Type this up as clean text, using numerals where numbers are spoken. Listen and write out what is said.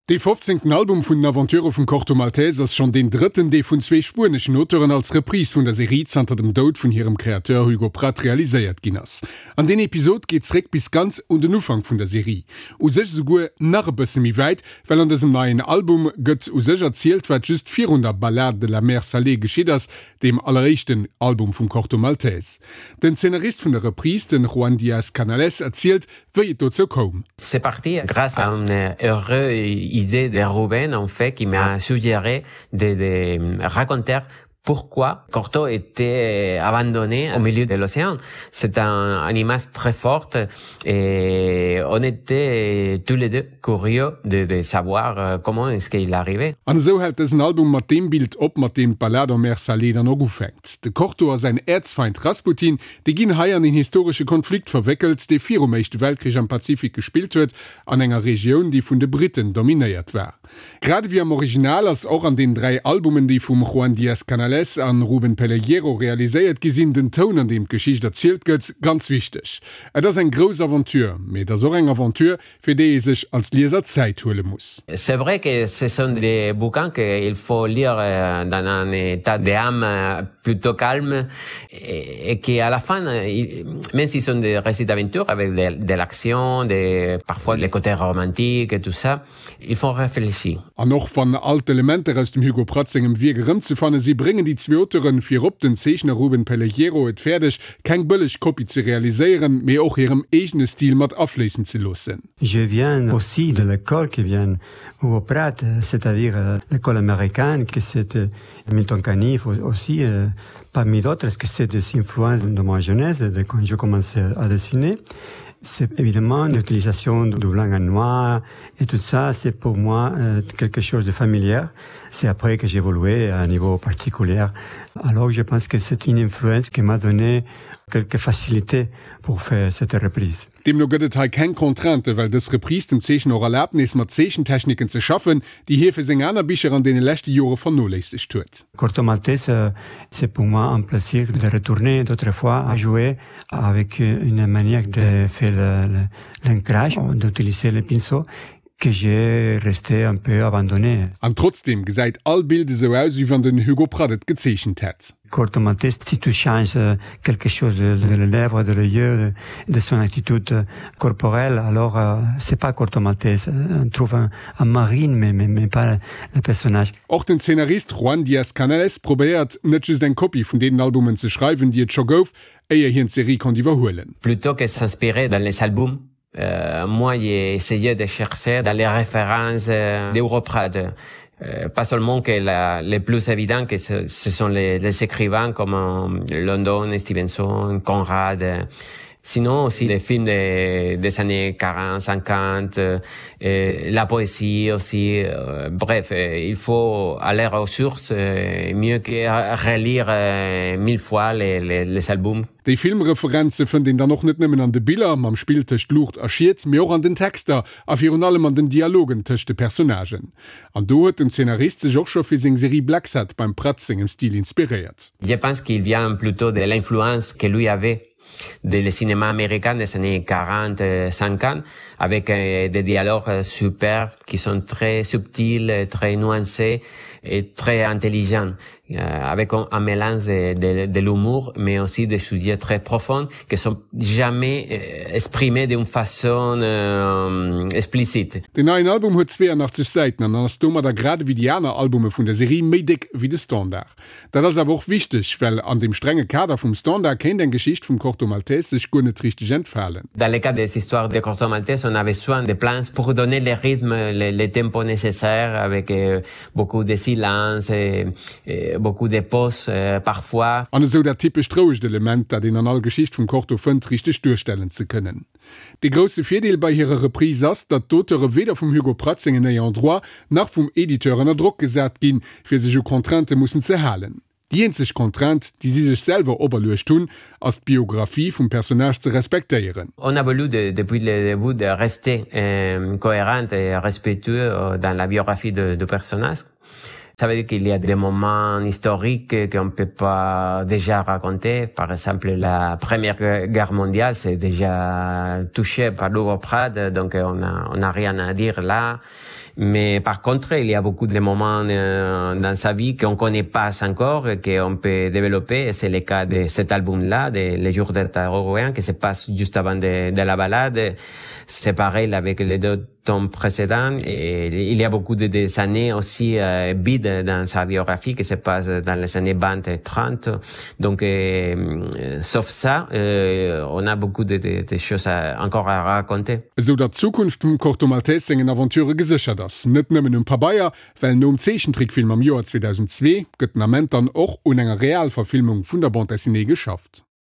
Dee fofzéngten Album vun den Aventurë vum Corto Maltese ass schonn deen drëtten, dee vun zwee spueneschen Auteuren als Reprise vun der Serie zanter dem Doud vun hirem Kreateur Hugo Pratt realiséiert ginn ass. An deen Episod geet zréck bis ganz un den Ufank vun der Serie. U sech esouguer nach e bësse méi wäit, well an dësem neien Album gëtt u sech erzielt, wat just virun der Ballade de la mer salée geschitt ass, deem alleréischten Album vum Corto Maltese. Den Zeenarist vun der Reprise, den Juan Diaz Canales, erzielt, wéi et dozou koum. C'est parti grâce à une heureuse idée de Ruben en fait qui m'a suggéré de, de raconter pourquoi Corto était abandonné au milieu de l'océan. C'est un, un image très forte et on était tous les deux curieux de, de savoir euh, comment est-ce qu'il arrivait. An esou hält dësen Album mat deem Bild op, mat deem d'Ballade en mer salée dann och ufänkt. De Corto a säin Äerzfeind Rasputin, déi ginn hei an een historesche Konflikt verwéckelt, dee virum Éischte Weltkrich am Pazifik gespillt huet, an enger Regioun, déi vun de Britten dominéiert war. Grad ewéi am Original ass och an den 3 Albumen, déi vum Juan Diaz Canales an Ruben Pellejero realiséiert gi sinn, den Toun, an deem d'Geschicht erzielt gëtt, ganz wichteg. Et ass eng grouss Aventure, mee et ass och eng Aventure, fir déi ee sech als Lieser Zäit huele muss. C'est vrai que ce sont des bouquins qu'il faut lire dans un état d'âme plutôt calme et qui à la fin, même s'ils sont des récits d'aventure avec de, de l'action, de, parfois le côté romantique et tout ça, ils font réfléchir. An och wann all d'Elementer aus dem Hugo Pratt sengem Wierk erëmzefanne si, bréngen déi zwee Auteuren, virop den Zeechner Ruben Pellejero, et fäerdeg, keng bëlleg Kopie ze realiséieren, mee och hirem eegene Stil mat afléissen ze loossen. Je viens aussi de l'école qui vient Hugo Pratt, c'est-à-dire l'école américaine, que c'était Milton Caniff aussi, parmi d'autres, que c'est des influences de ma jeunesse, de quand je commençais à dessiner. C'est évidemment l'utilisation du blanc et noir et tout ça, c'est pour moi quelque chose de familier. C'est après que j'ai évolué à un niveau particulier. Alors je pense que c'est une influence qui m'a donné quelques facilités pour faire cette reprise. Deemno gëtt et hei keng Contrainte, well dës Reprise dem Zeechner och erlaabt, nees mat Zeechentechniken ze schaffen, déi hie fir seng aner Bicher an deene leschte Jore vernoléissegt huet. Corto Maltese, c'est pour moi un plaisir de retourner d'autres fois à jouer avec une manière de faire l'ancrage, d'utiliser le pinceau que j'ai resté un peu abandonné. An trotzdeem gesäit all Bild esou aus, wéi wann den Hugo Pratt et gezeechent hätt. Corto Maltese, si tu changes quelque chose de les lèvres, de les yeux, de son attitude corporelle, alors c'est pas Corto Maltese. On trouve un, un marine, mais, mais, mais pas le personnage. Och den Zeenarist Juan Diaz Canales probéiert, net just eng Kopie vun deenen Albumen ze schreiwen, déi et scho gouf, éier hien d'Serie konnt iwwerhuelen. Plutôt que s'inspirer dans les albums, moi j'ai essayé de chercher dans les références d'Europrad. Euh, pas seulement que la, les plus évidents que ce, ce sont les, les écrivains comme London, Stevenson, Conrad, sinon aussi les films des, des années 40, 50, euh, la poésie aussi. Euh, bref, euh, il faut aller aux sources euh, mieux que relire euh, mille fois les, les, les albums. Déi Filmreferenze fënnt een dann och net nëmmen an de Biller, mam Spill tëscht Luucht a Schiet, mee och an den Texter a virun allem an den Dialogen tëscht de Personnagen. An do huet den Zeenarist sech och scho fir seng Serie Blacksad beim Pratt sengem Stil inspiréiert. Je pense qu'il vient plutôt de l'influence que lui avait de le cinéma américain des années 40 50 avec euh, des dialogues super qui sont très subtils, très nuancés et très intelligents euh, avec un, un mélange de, de, de l'humour mais aussi des sujets très profonds qui sont jamais euh, exprimés d'une façon euh, explicite. Den neien Album huet 82 Säiten an ass domadder grad ewéi déi aner Albume vun der Serie méi déck ewéi de Standard. Dat ass awer och wichteg, well an dem strenge Kader vum Standard kéint eng Geschicht vum Corto Maltese sech guer net richteg entfalen. Dans le cas des histoires de Corto Maltese, on avait soin de plans pour donner le rythme, le, le tempo nécessaire avec euh, beaucoup de silence et, et beaucoup de pauses euh, parfois. An esou dat typescht rouegt Element, dat een an all Geschicht vum Corto fënnt, richteg duerstellen ze kënnen. Dee grousse Virdeel bei hirer Reprise ass, datt d'Auteure weder vum Hugo Pratt sengen Ayants droit nach vum Editeur ënner Drock gesat ginn, fir sech u Contraintë mussen ze halen. Déi eenzeg Contrainte, déi si sech selwer operluecht hunn, ass d'Biographie vum Personnage ze respektéieren. On a voulu depuis le début de rester cohérent et respectueux dans la biographie du personnage. Ça veut dire qu'il y a des moments historiques qu'on peut pas déjà raconter. Par exemple, la première guerre mondiale, c'est déjà touché par Hugo Pratt, donc on a, on a rien à dire là. Mais par contre, il y a beaucoup de moments euh, dans sa vie qu'on connaît pas encore et qu'on peut développer. C'est le cas de cet album-là, de Les jours d'Ertaroen, qui se passe juste avant de, de la balade. C'est pareil avec les deux tomes précédents. Et il y a beaucoup de des années aussi euh, vides dans sa biographie qui se passe dans les années 20 et 30. Donc, euh, sauf ça, euh, on a beaucoup de, de, de choses à, encore à raconter. Esou datt d'Zukunft vum Corto Maltese sengen Aventurë geséchert ass. Net nëmmen um Pabeier, well nom Zeechentrickfilm am Joer 2002 gëtt den Ament dann och un enger Realverfilmung vun der Bande dessinée geschafft.